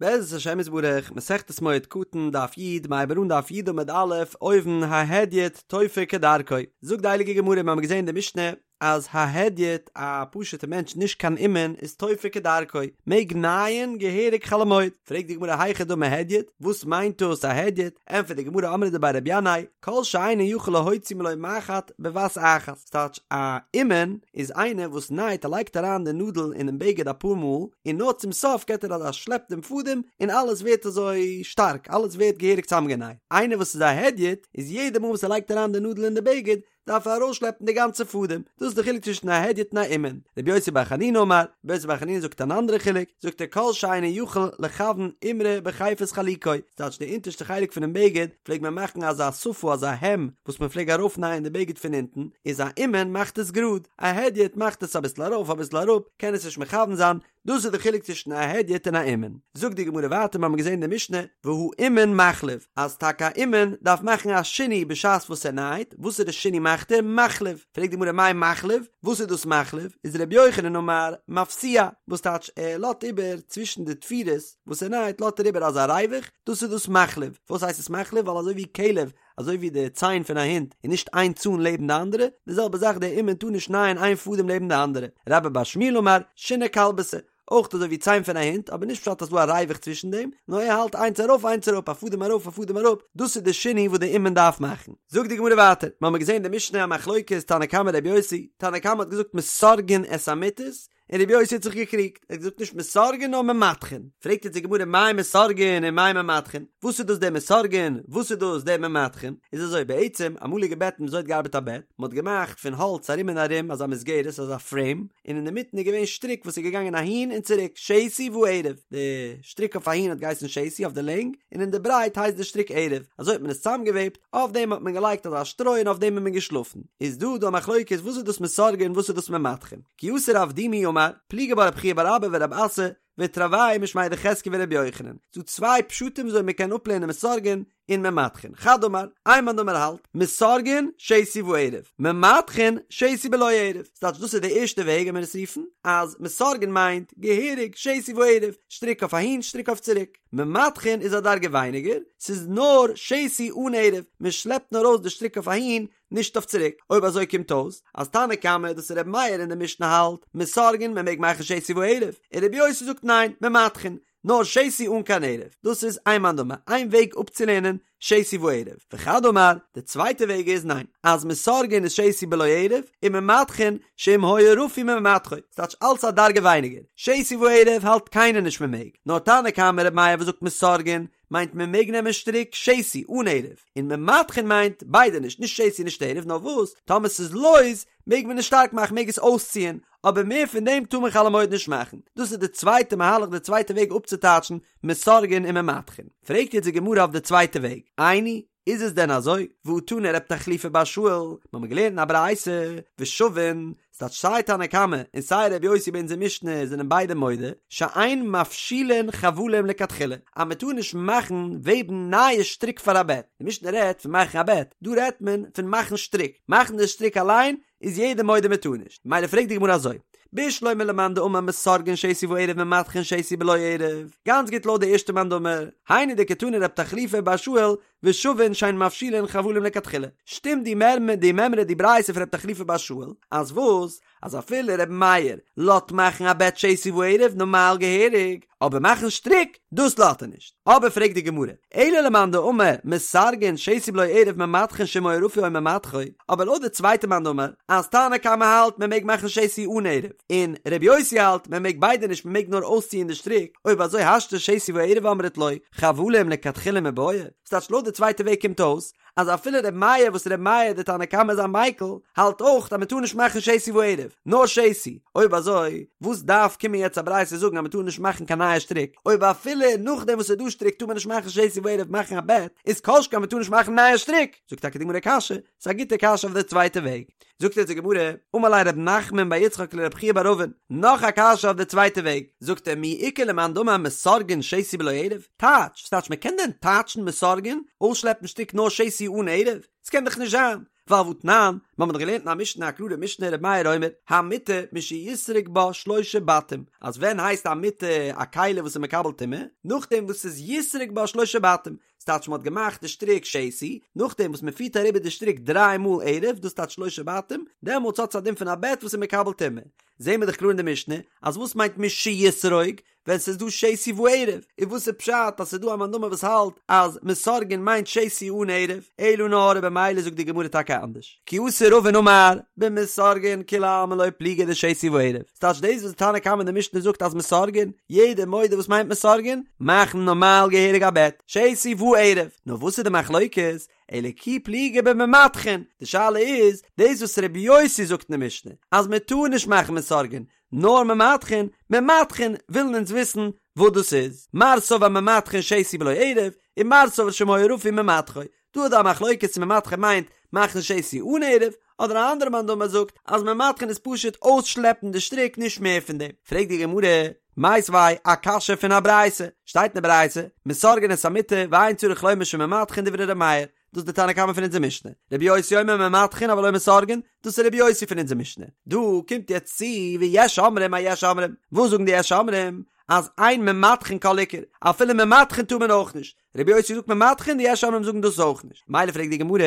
בעזרת השם יתברך, מסכת מועד קטן, דף י', מ'הייבט אן דף י' עמוד א', אויבן, ההדיוט תופר כדרכו. זאגט די הייליגע גמרא, מיר האבן געזען אין די משנה, אז ההדיוט, א פשוט'ע מענטש נישט קיין אומן, איז תופר כדרכו, מעג נייען געהעריג חול המועד. פרעגט די גמרא היכי דמי הדיוט, וואס מיינט דאס א הדיוט? ענטפערט די גמרא אמרי דבי רבי ינאי, כל שאינו יכול להוציא מלא מחט בבת אחת, ס'טייטש א אומן איז איינער וואס נייט ער לייגט אריין די נאדל אינעם בגד אפאר מאל און נאר צום סוף געט ער אזא שלעפ דעם פאדעם און אלעס ווערט אזוי שטארק אלעס ווערט געהעריג צוזאמגענייט, איינער וואס איז א הדיוט איז יעדע מאל וואס ער לייגט אריין די נאדל אין די בגד דארף ער ארויסשלעפן די גאנצע פאדעם, דאס איז די חילוק צווישן א הדיוט און א אומן. רבי יוסי בר חנינא אמר, רבי יוסי בר חנינא זאגט אן אנדערע חילוק, זאגט ער כל שאינו יכול לכוון אימרא בחיפת חלוקו, ס'טייטש די אונטערשטע חלק פונעם בגד פלעג מען מאכן אזא שפה אזא העם וואס מען פלעג ארויפנייען די בגד פון אונטן, איז א אומן מאכט עס גראד, א הדיוט מאכט עס אביסל ארויף אביסל אראפ, קען עס נישט מכוון זיין, דאס איז די חילוק צווישן א הדיוט און א אומן. זאגט די גמרא ווייטער, מיר האבן געזען אין די משנה, והאומן מחליב, אז טאקע א אומן דארף מאכן א שינוי בשעת וואס ער נייט, וואסערע שינוי מאכט ער? מחליב. פרעגט די גמרא מאי מחליב, וואס איז דאס מחליב? איז ר' יוחנן אמר, מפשיע, וואס טייטש ער לאזט איבער צווישן די תפירות וואס ער נייט לאזט ער איבער אזא ריווח, דאס איז דאס מחליב. פארוואס הייסט עס מחליב? ווייל אזוי ווי כלב אזוי ווי די ציין פון א הונט איז נישט איין צאן לעבן די אנדערע, די זעלבע זאך דער אומן טאר נישט נייען איין פאדעם לעבן די אנדערע, רבה בר שמואל אמר, שיני כלבתא, אויך אזוי ווי ציין פון א הונט, אבער נישט פשט אז ס'דא א ריווח צווישן דעם, נאר ער האלט איינס ארויף איינס אראפ, א פאדעם ארויף א פאדעם אראפ, דאס איז די שינוי וואס די אומן דארף מאכן. זאגט די גמרא ווייטער, מיר האבן געזען אין די משנה א מחלוקת תנא קמא רבי יוסי, תנא קמא האט געזאגט מסרגין את המטות, און רבי יוסי האט זיך געקריגט, ער האט געזאגט נישט מסרגין נאר ממתחין, פרעגט יעצט די גמרא מאי מסרגין און מאי ממתחין, וואס איז דאס דער מסרגין, וואס איז דאס דער ממתחין, איז אזוי בעצם אמאליגע בעטן וויאזוי האט געארבעט א בעט, מען האט געמאכט פון האלץ ארום און ארום אזא מסגרת אזא פרעים, און אינדערמיטן איז געווען שטריק וואס איז געגאנגען אהין און צוריק, שתי וערב, די שטריק אויף אהין האט געהייסן שתי אויף די לענג, און אין די ברייט הייסט די שטריק ערב, אזוי האט מען עס צוזאמגעוועבט, אויף דעם האט מען געלייגט אזא שטרוי און אויף דעם איז מען געשלאפן, איז דא דא א מחלוקת וואס איז דאס מסרגין און וואס איז דאס ממתחין. כי אתא רב דימי אמר, פליגי בה רב חייא בר אבא ורב אסי, ותרוייהו משמיה דחזקיה ורבי יוחנן. ס'דא צוויי פשטים וויאזוי מ'קען אפלערנען מסרגין און ממתחין. חד אמר, איין מאן דאמר האלט, מסרגין שתי וערב, ממתחין שתי בלא ערב. ס'טייטש דאס איז די ערשטע וועג וועט מען עס רופן, אז מסרגין מיינט געהעריג שתי וערב, שטריק אויף אהין שטריק אויף צוריק. ממתחין איז א דרגה ווייניגער, ס'איז נאר שתי אן ערב, מ'שלעפט נאר ארויס די שטריק אויף אהין, נישט אויף צוריק, אויב אזוי קומט אויס אז תנא קמא דאס איז ר' מאיר אין די משנה האלט מסרגין מען מעג מאכן שתי וערב, און ר' יוסי זאגט ניין ממתחין נאר שתי אן קיין ערב, דאס איז איין מאן דאמר איין וועג אפצולערנען שתי וערב, וחד אמר די צווייטע וועג איז ניין אז מסרגין איז שתי בלא ערב און ממתחין שאם היה רפוי ממתחו, ס'טייטש אלץ א דרגה ווייניגער, שתי וערב האלט קיינער נישט מען מעג, נאר תנא קמא ר' מאיר וואס זאגט מסרגין מיינט מען מעג נעמען שטריק שתי אן ערב, און ממתחין מיינט ביידע נישט, נישט שתי נישט ערב, נאר וואס טאמער ס'איז לויז מעג מען עס שטארק מאכן מעג עס אויסציען, אבער מער פון דעם טאר מען חול המועד נישט מאכן, דאס איז די צווייטע מהלך די צווייטע וועג אפצוטייטשן מסרגין און ממתחין. פרעגט יעצט די גמרא אויף די צווייטע וועג, איני, איז עס דען אזוי? והא תנא רב תחליפא בר שאול, מ'האמיר געלערנט אין א ברייתא, ושוין, ס'טייטש סיי תנא קמא און סיי רבי יוסי ביי אונזער משנה זענען ביידע מודה שאין מפשילין חבלים לכתחילה אז מען טאר נישט מאכן וועבן נייע שטריק פאר א בעט, די משנה רעדט פון מאכן א בעט, דא רעדט מען פון מאכן שטריק, מאכן די שטריק אליין איז יעדער מודה מען טאר נישט, ממילא פרעגט די גמרא אזוי, בשלמא למאן דאמר מסרגין שתי וערב ממתחין שתי בלא ערב, גאנץ גוט לויט די ערשטע מאן דאמר, היינו דקתני רב תחליפא בר שאול ושוין שאין מפשילין חבלים לכתחילה, שטימט די מימרא די מימרא די ברייתא פון רב תחליפא בר שאול, אז וואס? אז אפילו ר' מאיר לאט מאכן א בעט שתי וערב נארמאל געהעריג, אבער מאכן שטריק, דאס לאט ער נישט. אבער פרעגט די גמרא, אלא למאן דאמר מסרגין שתי בלא ערב ממתחין שאם היה רפוי או ממתחו, אבער לויט די צווייטע מאן דאמר, אז תנא קמא האלט מען מעג מאכן שתי אן ערב, און ר' יוסי האלט מען מעג ביידע נישט מען מעג נאר אויסציען די שטריק, אויב אזוי השתא שתי וערב אמרת לא, חבלים לכתחילה מיבעיא, ס'טייטש לויט די צווייטע וועג קומט אויס אז אפילו ר' מאיר וואס ר' מאיר די תנא קמא איז א מיקל האלט אויך אז מ'טאר נישט מאכן שתי וערב נאר שתי, אויב אזוי וואס דארף קומען יעצט א ברייתא זאגן אז מ'טאר נישט מאכן קיין נייע שטריק אויב אפילו נאכדעם וואס ס'איז דא שטריק טאר מען נישט מאכן שתי וערב מאכן א בעט איז כל שכן מ'טאר נישט מאכן נייע שטריק, זאגט טאקע די גמרא קשיא, ס'איז א גוטע קשיא אויף די צווייטע וועג. זאגט יעצט די גמרא, אמר ליה רב נחמן בר יצחק לרב חייא בר אבין, נאך א קשיא אויף די צווייטע וועג, זאגט ער מי איכא למאן דאמר מסרגין שתי בלא ערב, טייטש, ס'טייטש מ'קען דען טייטשן מסרגין, אויסשלעפן שטריק נאר שתי אן ערב? ס'קען דאך נישט זיין. ווייל והתנן, מיר האבן דאך געלערנט אין א משנה א קלארע משנה ר' מאיר אומר, המטה משיסרוג בה שלושה בתים, אז ווען הייסט א מטה א כלי וואס איז מקבל טומאה? נאכדעם וואס ס'איז יסרוג בה שלושה בתים, ס'טייטש מ'האט געמאכט די שטריק שתי, נאכדעם וואס מ'פירט אריבער די שטריק דריי מאל ערב, דאס טייטש שלושה בתים, דעמאלטס האט עס א דין פון א בעט וואס איז מקבל טומאה. זעהן מיר דאך קלאר אין די משנה, אז וואס מיינט משיסרוג? ווען ס'איז דא שתי וערב, און וואס איז פשט אז ס'איז דא א מאן דאמר וואס האלט אז מסרגין מיינט שתי אן ערב, אלא נאר במילא זאגט די גמרא טאקע אנדערש, כי אתא רבין אמר במסרגין כולי עלמא לא פליגי דשתי וערב, ס'טייטש דאס וואס די תנא קמא אין די משנה זאגט אז מסרגין, יעדער מודה וואס מיינט מסרגין, מאכן נארמאל געהעריג א בעט, שתי וערב, נאר וואס איז די מחלוקת, אלא כי פליגי בממתחין, די שאלה איז, דאס וואס רבי יוסי זאגט אין די משנה אז מ'טאר נישט מאכן מסרגין, נאר ממתחין, ממתחין ווילן אונז וויסן וואס דאס איז, מר סבר ממתחין שתי בלא ערב, און מר סבר שאם היה רפוי ממתחו, דא איז דא א מחלוקת צו ממתחין מיינט מאכן שתי אן ערב, אדער א אנדערע מאן דאמר זאגט אז ממתחין איז פשוט אויסשלעפן די שטריק נישט מער פון דעם, פרעגט די גמרא, מיתיבי א קשיא פון א ברייתא, שטייט אין די ברייתא, מסרגין את המטה ואין צריך לומר שממתחין דברי ר' מאיר, דאס איז די תנא קמא פון אונזער משנה. רבי יוסי אומר ממתחין אבל לא מסרגין, דאס איז רבי יוסי פון אונזער משנה. דא קומט יעצט צו ויש אומרים א יש אומרים. וואס זאגן די יש אומרים? אז אין ממתחין כל עיקר, אפילו ממתחין טאר מען אויך נישט. רבי יוסי זאגט ממתחין, די יש אומרים זאגן דאס אויך נישט. מילא פרעגט די גמרא,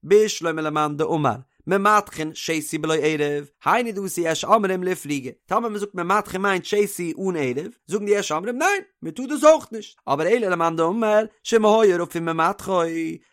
בשלמא למאן דאמר ממתחין שתי בלא ערב, היינו דאתו יש אומרים לאיפלוגי. טאמער מען זאגט ממתחין מיינט שתי אן ערב, זאגן די יש אומרים ניין, מען טאר דאס אויך נישט. אבער אלא למאן דאמר שאם היה רפוי ממתחו,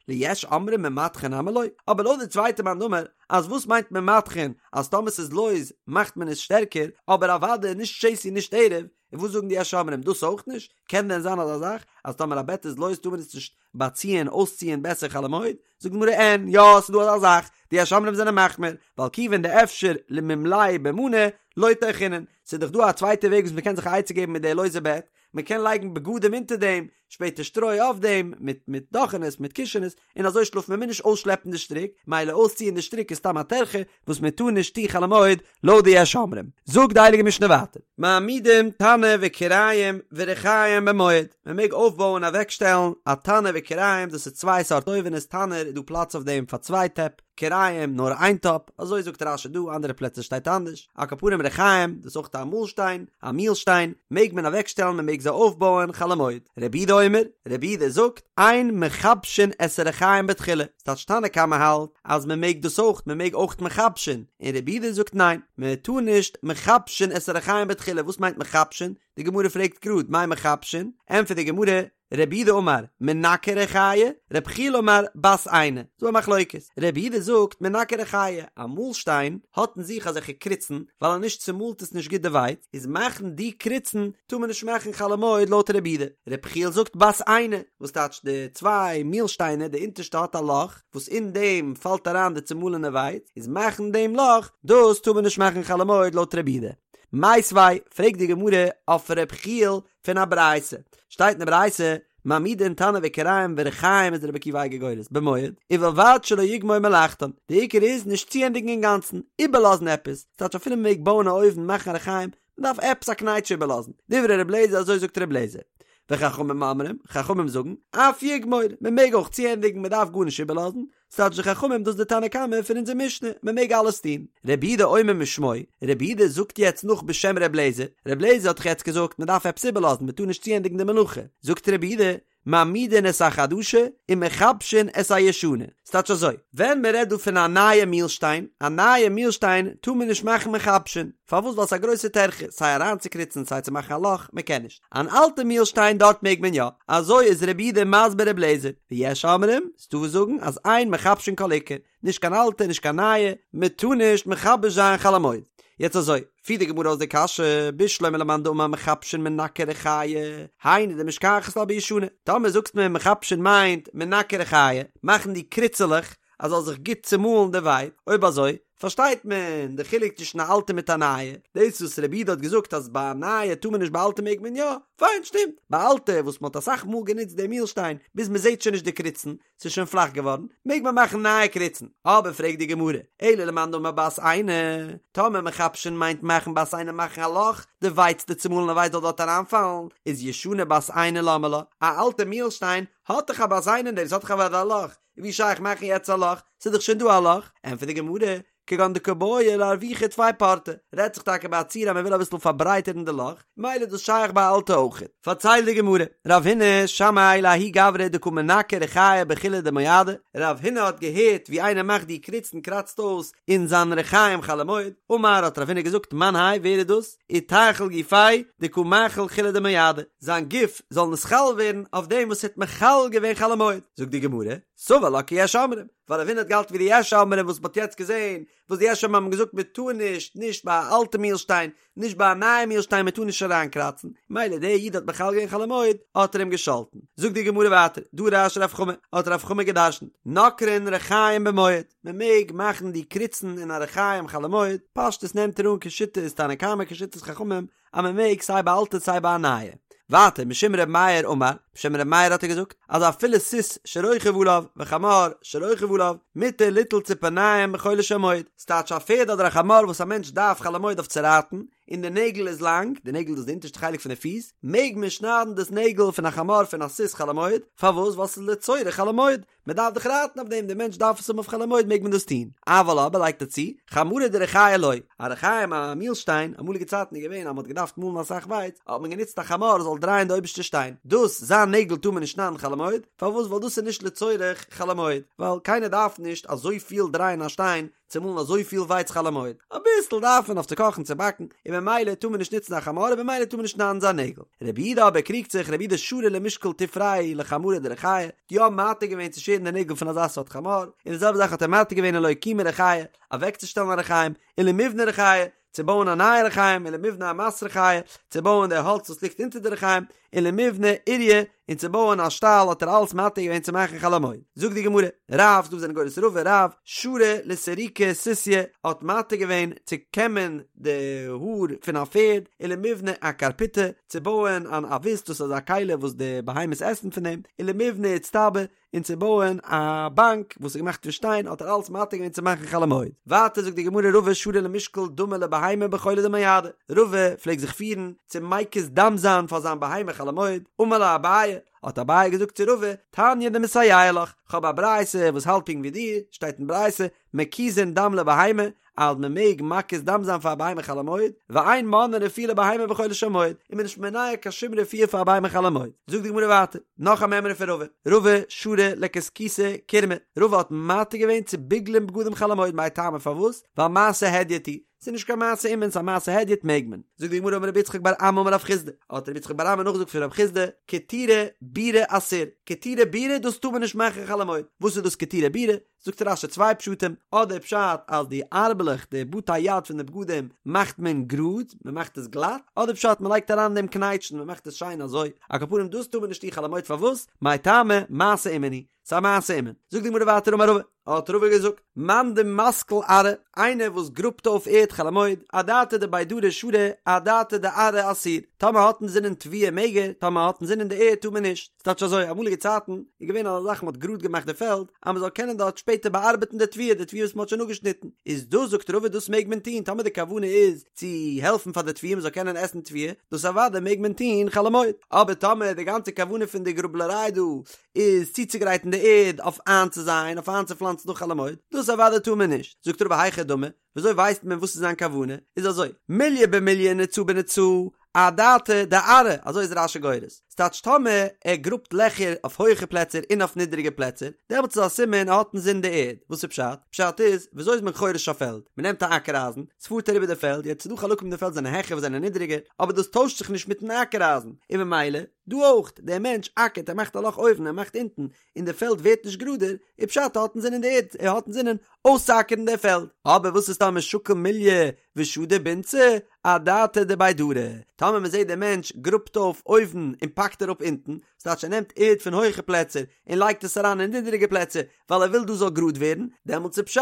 ליש אומרים ממתחין נמי לא. אבער לויט די צווייטע מאן דאמר אז וואס מיינט ממתחין אז טאמער ס'איז לויז מאכט מען עס שטערקער, אבער אוודאי נישט שתי נישט ערב, און וואס זאגן די יש אומרים דאס אויך נישט? קען דען זיין אזא זאך אז טאמער א בעט איז לויז טאר מען עס נישט באציען אויסציען בעסער חול המועד? זאגט די גמרא אין, יא ס'איז דא אזא זאך, די יש אומרים זענען מחמיר, ווייל כיוון דאפשר למימלייה במאני לא טרחינן, ס'איז דאך דא א צווייטע וועג וואס מ'קען זיך א עצה געבן מיט די לויזע בעט, מ'קען לייגן בגדים אונטער דעם, שפעטער שטרוי אויף דעם, מיט מיט דאכענעס, מיט קישענעס, און אזוי שלאפן מען מוז נישט אויסשלעפן די שטריק, מילא אויסציען די שטריק איז סתם א טרחה וואס מען טאר נישט טון חול המועד לויט די יש אומרים. זאגט די הייליגע משנה ווייטער, מעמידים תנור וכיריים ורחיים במועד, מען מעג אויפבויען אוועקשטעלן א תנור וכיריים, דאס איז צוויי סארט אויווענעס, תנור איז דא פלאץ אויף דעם פאר צוויי טעפ, כיריים נאר איין טאפ, אזוי זאגט רש"י דא, אנדערע פלעצער שטייט אנדערש, על כל פנים רחיים, דאס איז אויך א מאלשטיין, א מילשטיין, מעג מען אוועקשטעלן מען מעג זיי אויפבויען חול המועד. רבי יהודה אומר, רבי יהודה זאגט, אין מכבשין את הרחיים בתחילה, ס'טייטש תנא קמא האלט אז מען מעג דאס אויך, מען מעג אויך מכבשין, און רבי יהודה זאגט ניין, מען טאר נישט מכבשין את הרחיים בתחילה, וואס מיינט מכבשין? די גמרא פרעגט גראד, מאי מכבשין? ענטפערט די גמרא, רב יהודה אמר, מנקר ריחיא, רב יחיאל אמר, בת עינא. ס'דא א מחלוקת. רב יהודה זאגט, מנקר ריחיא, א מאלשטיין האט אין זיך אזעלכע קריצן, ווייל אז נישט צומאלט עס נישט גוט די ווייץ, איז מאכן די קריצן טאר מען נישט מאכן חול המועד לויט רב יהודה. רב יחיאל זאגט בת עינא, וואס טייטש די צוויי מילשטיינער, די אונטערשטע האט א לאך, וואס אין דעם פאלט אריין די צומאלענע ווייץ, איז מאכן דעם לאך, דאס טאר מען נישט מאכן חול המועד לויט רב יהודה. מיתיבי, פרעגט די גמרא אויף רב יחיאל, פון א ברייתא, שטייט אין די ברייתא, מעמידין תנור וכיריים ורחיים איז רבי עקיבא אייגער גורס, במועד, ובלבד שלא יגמור מלאכתן, די עיקר איז נישט צוענדיגן אינגאנצן, איבערלאזן עפעס, ס'טייטש אפילו מ'מעג בויען א אויוון מאכן א רחיים, מ'דארף עפעס א קנייטש איבערלאזן, דברי ר' לעזער אזוי זאגט ר' לעזער. וחכמים אומרים, חכמים זאגן, אף יגמור, מ'מעג אויך צוענדיגן מ'דארף גארנישט איבערלאזן, ס'טייטש די חכמים דאס די תנא קמא פון אונזער משנה, מען מעג אלעס טון. רבי יהודה אומר משמו, רבי יהודה זאגט יעצט נאך בשם רבי אליעזר, רבי אליעזר האט דאך יעצט געזאגט מען דארף עפעס איבערלאזן מען טאר נישט צוענדיגן די מלאכה, זאגט רבי יהודה, מעמידין את החדשה ומכבשין את הישנה, ס'טייטש אזוי, ווען מען רעדט דא פון א נייע מילשטיין, א נייע מילשטיין טאר מען נישט מאכן מכבשין, פארוואס ווייל ס'איז א גרויסע טרחה סיי אריינצוקריצן סיי צו מאכן א לאך, מען קען נישט. אן אלטע מילשטיין דארט מעג מען יא, אזוי איז רבי יהודה מסביר רבי אליעזר, ויש אומרים, ס'דא וואס זאגן אז אין מכבשין כל עיקר, נישט קיין אלטע נישט קיין נייע, מען טאר נישט מכבש זיין חול המועד. יעצט אזוי, פירט די גמרא אויס די קשיא, בשלמא למאן דאמר מכבשין מנקר ריחיא, היינו דמשכחת לה בישנה, טאמער זאגסט מיר מכבשין מיינט מנקר ריחיא, מאכן די קריצעלעך אז זאל זיך גוט צומאלן די ווייץ, אויב אזוי, פארשטייט מען די חילוק צווישן א אלטע מיט א נייע, דאס וואס רבי יהודה האט געזאגט אז ביי א נייע טאר מען נישט ביי אלטע מעג מען יא, פיין שטימט, ביי אלטע וואס מען האט אסאך מאל גענוצט די מילשטיין ביז מען זעט שוין נישט די קריצן, ס'איז שוין פלאך געווארן, מעג מען מאכן נייע קריצן. אבער פרעגט די גמרא, אלא למאן דאמר בת עינא, טאמער מכבשין מיינט מאכן בת עינא מאכן א לאך, די ווייץ די צומאלענע ווייץ זאל דארט אריינפאלן, איז ישנה בת עינא למה לה, א אלטע מילשטיין האט דאך א בת עינא אין דעם, ס'האט דאך אוודאי א לאך, ווי שייך מאכן יעצט א לאך, ס'איז דאך שוין דא א לאך, ענטפערט די גמרא, כגון דקא בעי לארווחי טפי פורתא, רעדט זיך טאקע ביי א ציור אז מען וויל אביסל פארברייטערן די לאך, מילא איז דאס שייך ביי אלטע אויכעט. פארציילט די גמרא, רב הונא שמעיה לההוא גברא דקא מנקר ריחיא בחולא דמועדא, רב הונא האט געהערט ווי איינער מאכט די קריצן קראצט אויס אין זיין רחיים חול המועד, אמר האט רב הונא געזאגט מאן האי ווער איז דאס, איתחיל גופיה דקא מחיל חולא דמועדא, זיין גוף זאל נתחלל ווערן אויף דעם וואס האט מחלל געווען חול המועד, זאגט די גמרא, סבר לה כיש אומרים, ווייל רב הונא האט געהאלטן ווי די יש אומרים וואס מ'האט יעצט געזען, וואס די יש אומרים האבן געזאגט מ'טאר נישט, נישט ביי א אלטע מילשטיין, נישט ביי א נייע מילשטיין מ'טאר נישט אריינקראצן, מילא דער איד האט מחלל געווען חול המועד, האט ער אים געשאלטן. זאגט די גמרא ווייטער, דרש רב חמא, האט רב חמא גע'דרש'נט, נוקרין רחיים במועד, מ'מעג מאכן די קריצן אין א רחיים חול המועד, פשטות נעמט ער אן כשיטת תנא קמא כשיטת חכמים, אז מען מעג סיי ביי אלטע סיי ביי א נייע. ווייטער משום ר' מאיר אמר, בשם ר' מאיר האט ער געזאגט, אז אפילו סוס שרוכב עליו וחמור שרוכב עליו, מותר ליטול ציפורניים בחולו של מועד, ס'טייטש א פערד אדער א חמור וואס א מענטש דארף חול המועד אויף צו רייטן, און די נעגל איז לאנג, די נעגל דאס די אונטערשטע חלק פון די פיס, מעג מען שניידן דאס נעגל פון א חמור פון א סוס חול המועד, פארוואס? ווייל ס'איז לצורך חול המועד, מען דארף דאך רייטן אויף דעם, דער מענטש דארף עס האבן אויף חול המועד מעג מען דאס טון, אבל אבער לייגט ער צו, חמרא דריחיא לא, א רחיים א מילשטיין, אמאליגע צייטן איז געווען אז מען האט געדארפט מאלן אסאך ווייץ, האט מען גענוצט א חמור זאל דרייען די אויבערשטע שטיין, דאס זיין נעגל טאר מען נישט שניידן חול המועד, פארוואס ווייל דאס איז נישט לצורך חול המועד, ווייל קיינער דארף נישט אזויפיל דרייען א שטיין צו מאלן אזויפיל ווייץ חול המועד, אביסל דארף מען אויף צו קאכן צו באקן, און ממילא טאר מען נישט נוצן א חמור און ממילא טאר מען נישט שניידן זיין נעגל. רבי יהודה אבער קריגט זיך, רבי יהודה שרא למשקל תופריה לחמרא דריחיא, האט יא מתיר געווען צו שערן די נעגל פון אזא סארט חמור, און די זעלבע זאך האט ער מתיר געווען ולאוקומי ריחיא, אוועקצושטעלן א רחיים, ולמיבני ריחיא, צו בויען א נייע רחיים, ולמיבני אמת ריחיא, צו בויען די האלץ וואס ליגט אונטער די רחיים, ולמיבני אוריא, און צו בויען א שטאל האט ער אלעס מתיר געווען צו מאכן חול המועד. זאגט די גמרא, רב, דא זענען גורס רבא, רב, שרא לסרוקי סוסיא, האט מתיר געווען צו קעמען די האר פון א פערד, ולמיבני אקרפיטא, צו בויען אן אבוס, דאס איז א כלי וואס די בהמות עסן פון דעם, ולמיבני אצטבא, און צו בויען א באנק וואס איז געמאכט פון שטיין האט ער אלץ מתיר געווען צו מאכן חול המועד. ווייטער זאגט די גמרא רבא שרא למשקל דמא לבהמה בחולא דמועדא, רבא פלעגט זיך פירן צו מקיז דם זיין פאר זיין בהמה חול המועד, אמר ליה אביי, האט אביי געזאגט צו רבא, תניא דמסייע לך, כ'האב א ברייתא וואס האלט פונקט ווי דיר, שטייט אין ברייתא, מקיזין דם לבהמה, אז מען מעג מקיז דם זיין פאר א בהמה חול המועד, ואין מונעין רפואה לבהמה בחולו של מועד, און מען איז נישט מונע קיין שום רפואה פאר א בהמה חול המועד. זאגט די גמרא ווייטער, נאך א מימרא פון רבא, רבא שרא לכסכוסי קירמי, רבא האט מתיר געווען צו ביגלען בגדים חול המועד, מאי טעמא פארוואס? ווייל מעשה הדיוט הוא, ס'איז נישט קיין מעשה אומן, ס'איז א מעשה הדיוט מעג מען. זאגט די גמרא אמר רבי יצחק בר אמי אמר רב חסדא, האט רבי יצחק בר אמי נאכגעזאגט פון רב חסדא, קטירי בירי אסור, קטירי בירי דאס טאר מען נישט מאכן חול המועד, וואס איז דאס קטירי בירי? זאגט רש"י צוויי פשטים, אדער פשט אז די ארבלעך, די בתי יד פון די בגדים, מאכט מען גראד, מען מאכט עס גלאט, אדער פשט מען לייגט אריין אין דעם קנייטשן, מען מאכט עס שיין אזוי, על כל פנים דאס טאר מען נישט טון חול המועד פארוואס? מאי טעמא, מעשה אומן הוא, ס'איז א מעשה אומן. זאגט די גמרא ווייטער אמר רבא, האט רבא געזאגט, מאן דמסקיל ארעא, איינער וואס גראבט אויף ערד חול המועד, אדעתא דבי דרי שרי, אדעתא דארעא אסור, טאמער האט אינזינען תבואה מעג ער, טאמער האט אינזינען די ערד טאר מען נישט. ס'טייטש אזוי, אמאליגע צייטן איז געווען אזא זאך מ'האט גראד געמאכט די פעלד אז מ'זאל קענען דארט שפעטער באארבעטן די תבואה, די תבואה וואס מ'האט שוין אפגעשניטן, איז דאס זאגט רבא דאס מעג מען טון טאמער די כוונה איז צו העלפן פאר די תבואה מ'זאל קענען עסן תבואה, דאס אוודאי מעג מען טון חול המועד, אבער טאמער די גאנצע כוונה פון די גראבלעריי דא איז צוצוגרייטן די ערד אויף איינצוזייען, אויף איינצופלאנצן נאך חול המועד, דאס אוודאי טאר מען נישט, זאגט רבא היכי דמי, וויאזוי ווייסט מען וואס איז זיין כוונה? איז אזוי, מיליא במיליא נצא בנצא, אדעתא דארעא, אזוי איז רש"י גורס. ס'טייטש טאמער ער גראבט לעכער אויף הויעכע פלעצער און אויף נידעריגע פלעצער, דעמאלטס איז א סימן ער האט אינזין די ערד. וואס איז פשט? פשט איז, וויאזוי איז מען חורש א פעלד? מ'נעמט א אקער אייזן, ס'פארט אריבער די פעלד, יעצט ס'דא חלקים אין די פעלד זענען העכער וואס זענען נידעריגער, אבער דאס טוישט זיך נישט מיטן אקער אייזן, און ממילא, דא אויך, דער מענטש אקערט, ער מאכט א לאך אויבן, ער מאכט אונטן, און די פעלד ווערט נישט גראדער, איז פשט ער האט אינזינען די ערד, ער האט אינזינען אויסצואקערן די פעלד. אבער וואס איז טאמער שקיל מיליא ושדי בנצי, אדעתא דבי דרי, טאמער מען זעט דער מענטש גראבט אויף אויבן און פאקט אראפ אונטן, ס'טייטש ער נעמט ערד פון הויכע פלעצער און לייגט עס אריין אין נידעריגע פלעצער ווייל ער וויל דא זאל גראד ווערן, דעמאלטס איז פשט.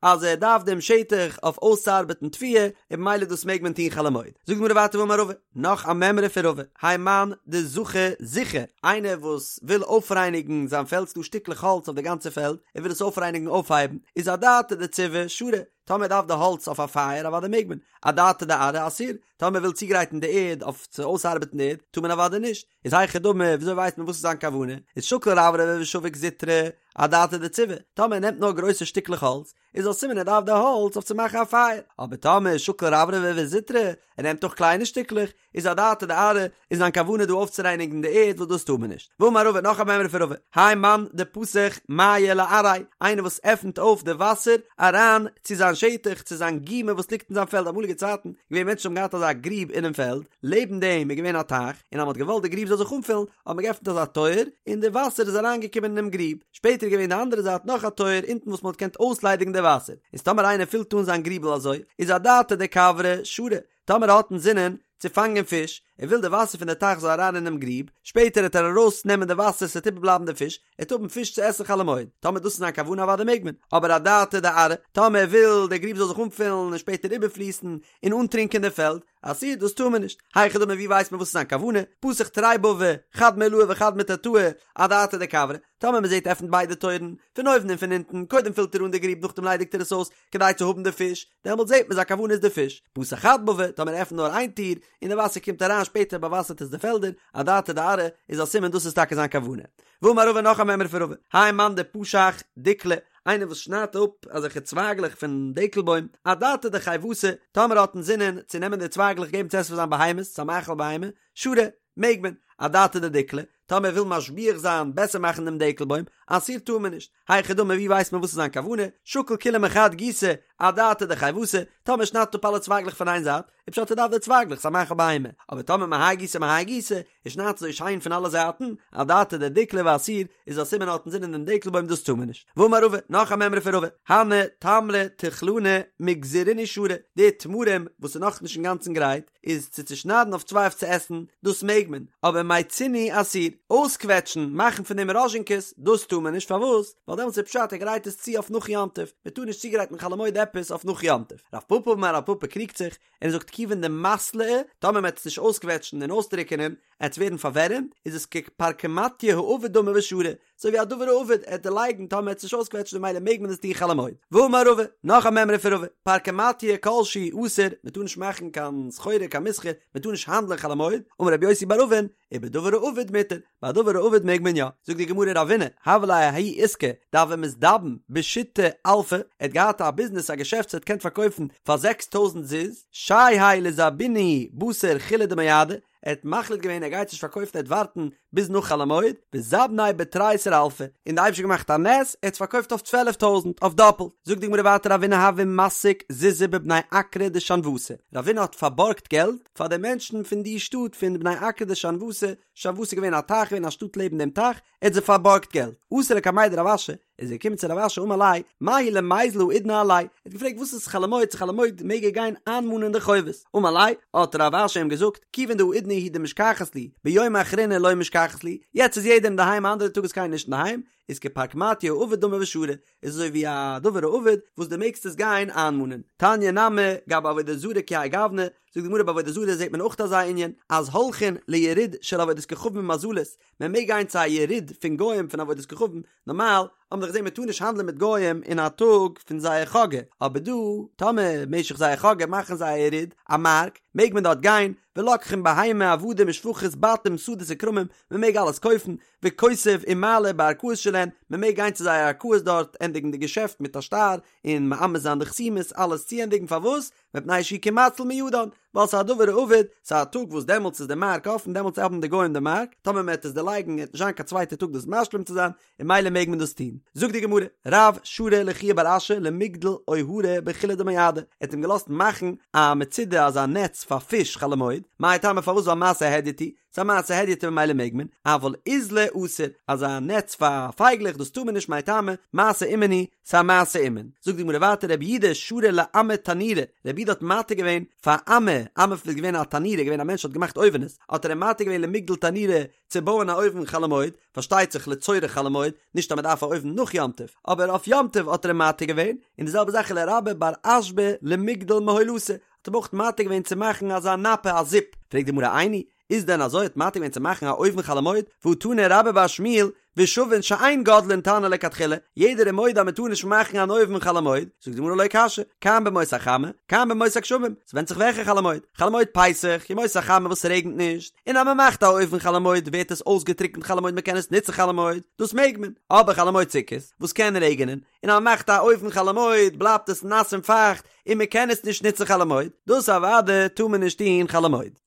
אז ער דארף דעם שטח אויף אויסצוארבעטן תבואה, און במילא דאס מעג מען טון חול המועד. זאגט די גמרא ווייטער ואמר רבא, נאך א מימרא פון רבא, האי מאן דזחי זיכי, איינער וואס וויל אויפרייניגן זיין פעלד, ס'דא שטיקלעך האלץ אויף די גאנצע פעלד, ער וויל עס אויפרייניגן אויפהייבן, איז אדעתא דציבי שרי, טאמער ער דארף די האלץ אויף א פייער אוודאי מעג מען, אדעתא דארעא אסור, טאמער ער וויל צוגרייטן די ערד אויף צו אויסארבעטן די ערד, טאר מען אוודאי נישט, איז היכי דמי, וויאזוי ווייסט מען וואס איז זיין כוונה, איז שקיל רברבי ושביק זוטרי, אדעתא דציבי, טאמער ער נעמט נאר גרויסע שטיקלעך האלץ, איז א סימן ער דארף די האלץ אויף צו מאכן א פייער, אבער טאמער שקיל רברבי וזוטרי, ער נעמט אויך קליינע שטיקלעך, איז אדעתא דארעא, איז זיין כוונה דא אויפצורייניגן די ערד וואס דאס טאר מען נישט. ואמר רבא, נאך א מימרא פון רבא, האי מאן דפתח מיא לארעיה, איינער וואס עפנט אויף די וואסער אריין צו זיין שטח, צו זיין גומא וואס ליגט אין זיין פעלד, אמאליגע צייטן געווען מענטשן האבן געהאט אזא גריב אינעם פעלד, לעבן דעם איז געווען א טייך, און אז מען האט געוואלט די גריב זאל זיך אנפילן, האט מען געעפנט אזא טויער, און די וואסער איז אריינגעקומען אינעם גריב. שפעטער איז געווען די אנדערע זייט נאך א טויער אונטן וואס מען האט געקענט אויסליידיגן די וואסער. איז טאמער איינער פילט אן זיין גריבל אזוי, איז אדעתא דכוורי שרי, טאמער ער האט אינזינען צו פאנגען פיש, ער וויל די וואסער פון די טייך זאל אריין אינעם גריב, שפעטער העט ער ארויס נעמען די וואסער ס'עט איבערבלייבן די פיש, ער העט האבן פיש צו עסן חול המועד, טאמער דאס איז זיין כוונה אוודאי מעג מען, אבער אדעתא דארעא, טאמער ער וויל די גריב זאל זיך אנפילן און שפעטער איבערפליסן און אנטרינקען די פעלד, אסור, דאס טאר מען נישט, היכי דמי ווי ווייסט מען וואס איז זיין כוונה, פתח תרי בבי, חד מעילאי וחד מתתאי, אדעתא דכוורי, טאמער מען זעט עפנט ביידע טויערן, פון אויבן און פון אונטן, קודם פילט ער אן די גריב נאכדעם ליידיגט ער עס אויס, כדי צו האבן די פיש, דעמאלט זעט מען זיין כוונה איז די פיש, פתח חד בבא, טאמער ער עפנט נאר איין טיר, און די וואסער קומט אריין שפעטער באוואסערט עס די פעלדער, אדעתא דארעא, איז א סימן דאס איז טאקע זיין כוונה. ואמר רבא נאך א מימרא פון רבא, האי מאן דפשח דיקלא, איינער וואס שניידט אפ אזעלכע צווייגלעך פון דקל בוים, אדעתא דחיותא, טאמער ער האט אינזינען צו נעמען די צווייגלעך געבן צו עסן פאר זיין בהמות, צו א מאכל בהמה, שרי, מעג מען, אדעתא דדיקלא, טאמער ער וויל משביח זיין, בעסער מאכן דעם דקל בוים, אסור טאר מען נישט, היכי דמי ווי ווייסט מען וואס איז זיין כוונה, שקיל כולהו מחד גיסא, אדעתא דחיותא, טאמער שניידט אפ אלע צווייגלעך פון איין זייט, איז פשט ער דארף די צווייגלעך ס'איז א מאכל בהמה, אבער טאמער מהאי גיסא מהאי גיסא, ער שניידט אזוי שיין פון אלע זייטן, אדעתא דדיקלא ואסור, איז א סימן ער האט אינזינען דעם דקל בוים דאס טאר מען נישט. ואמר רבא, נאך א מימרא פון רבא, הני תמרי תחלני מגזרינהו שרי, די תמרים וואס איז נאכנישט אינגאנצן גרייט, איז צו צושניידן אויף צוויי אויף צו עסן, דאס מעג מען, אבער מיצינהו אסור, אויסקוועטשן, מאכן פון דעם ראזשינקעס, דאס טאר מען נישט, פארוואס? ווייל דעמאלטס איז פשט ער גרייט עס צו אויף נאך יום טוב, מען טאר נישט צוגרייטן חול המועד עפעס אויף נאך יום טוב. רב פפא אמר רב פפא קריגט זיך, און ער זאגט כיוון דמתלעי, טאמער מען וועט עס נישט אויסקוועטשן און אויסטריקענען, עט עס ווערן פארווערעמט, איז עס כפרקמטיא האבד דמי ושרי, אזוי ווי א דבר האבד, עט דערלייגן טאמער מ'עט עס נישט אויסקוועטשן ממילא מעג מען עס טון חול המועד. ואמר רבא, נאך א מימרא פון רבא, פרקמטיא כל שהוא אסור, מען טאר נישט מאכן קיין סחורה קיין מסחר, מען טאר נישט האנדלען חול המועד, אמר רבי יוסי בר אבין, ובדבר האבד מותר, ביי א דבר האבד מעג מען יא. זאגט די גמרא רבינא, הוה ליה ההוא עיסקא דהוה מזדבן בשיתא אלפי, ער האט געהאט א ביזנעס א געשעפט וואס ער האט געקענט פארקויפן פאר 6000 זוז, שיהייה לזבוניה בתר חולא דמועדא, ער האט מחליט געווען ער גייט נישט פארקויפן ער וועט ווארטן ביז נאך חול המועד, וזבניה בתריסר אלפי, און די אייבערשטער האט געמאכט א נס, ער האט עס פארקויפט אויף צוועלף טויזענט, אויף דאפלט. זאגט די גמרא ווייטער רבינא הוה מסיק זוזי בבני אקרא דשנואתא, רבינא האט פארבארגט געלט פאר די מענטשן פון די שטאט פון בני אקרא דשנואתא, שנואתא איז געווען א טייך געווען א שטאט לעבן דעם טייך, ער האט זיי פארבארגט געלט. אתא לקמיה דרב אשי, איז ער געקומען צו רב אשי אמר ליה, מהו למיזל האידנא עלייהו, ער האט געפרעגט וואס איז חול המועד צו חול המועד מעג ער גיין איינמאנען די חובות, אמר ליה, האט רב אשי אים געזאגט, כיוון דהאידנא הוא דמשכחת להו, ביומא אחרינא לא משכחת להו, יעצט איז יעדער אינדערהיים א אנדערע טאג איז קיינער נישט אינדערהיים, איז כפרקמטיא האבד דמי ושרי, איז אזוי ווי א דבר האבד וואס דו מעגסט עס גיין איינמאנען. תניא נמי, גבי עבודה זרה כי האי גוונא, זאגט די גמרא ביי עבודה זרה זעט מען אויך אזא ענין, אז הולכין ליריד של עבודת כוכבים ומזלות, מען מעג גיין צו א יריד פון גוים פון עבודת כוכבים, נארמאל האבן מיר דאך געזען מען טאר נישט האנדלען מיט גוים אין א טאג פון זייער חגא, אבער דא טאמער משך זייער חגא מאכן זיי א יריד, א מארק, מעג מען דארט גיין, ולוקחין בהמה עבדים ושפחות בתים שדות וכרמים, מען מעג אלעס קויפן, וכותב ומעלה בערכאות שלהן, מען מעג גיין צו זייער ערכאות דארט ענדיגן די געשעפט מיט א שטר, און מאמת זיין די חתימות, אלעס צוענדיגן, פארוואס? מפני שהוא כמציל מידן, ווייל ס'איז א דבר האבד, ס'איז א טאג וואס דעמאלטס איז די מארק אפן, דעמאלטס האבן די גוים די מארק, טאמער מ'עט עס דערלייגן עט נישט זיין קיין צווייטע טאג דאס משלים צו זיין, און ממילא מעג מען דאס טון. זאגט די גמרא, רב שרא לחייא בר אשי למיגדל אוהרי בחולא דמועדא, ער האט אים געלאזט מאכן א מצודה אזא נעץ פאר פיש חול המועד. מאי טעמא פארוואס ווייל מעשה הדיוט הוא, ס'איז א מעשה הדיוט און ממילא מעג מען, אבל אוזלא אסור, אזא נעץ פאר פייגלעך דאס טאר מען נישט מאי טעמא, מעשה אומן הוא, ס'איז א מעשה אומן. זאגט די גמרא ווייטער רבי יהודה שרא לאמי תנורא, רבי יהודה האט מתיר געווען פאר אמי, אמי איז געווען א תנורא, געווען א מענטש האט געמאכט אויווענעס, האט ער אים מתיר געווען למיגדל תנורא צו בויען א אויוון חול המועד, פארשטייט זיך לצורך חול המועד, נישט אז מען דארף א אויוון נאך יום טוב, אבער אויף יום טוב האט ער אים מתיר געווען, און די זעלבע זאך ולרבה בר אשבא למיגדל מהולתא, האט אים אויך מתיר געווען צו מאכן אזא נפה א זיפ, פרעגט די גמרא איני, איז דען אזוי האט מתיר געווען צו מאכן א אויוון חול המועד, והא תני רבה בר שמואל, ושוין שאין גודלין תנור לכתחילה, יעדער איז מודה אז מען טאר נישט מאכן אן אויוון חול המועד, זאגט די גמרא לא קשיא, כאן בימות החמה, כאן בימות הגשמים, ס'ווענדט זיך וועלכע חול המועד, חול המועד פסח, ימות החמה וואס ס'רעגנט נישט, און אז מען מאכט א אויוון חול המועד ווערט עס אויסגעטריקנט חול המועד מען קען עס נוצן חול המועד, דאס מעג מען, אבער חול המועד סוכות, וואס קען רעגענען, און אז מען מאכט א אויוון חול המועד בלייבט עס נאס און פייכט און מען קען עס נישט נוצן חול המועד, דאס אוודאי טאר מען נישט טון חול המועד.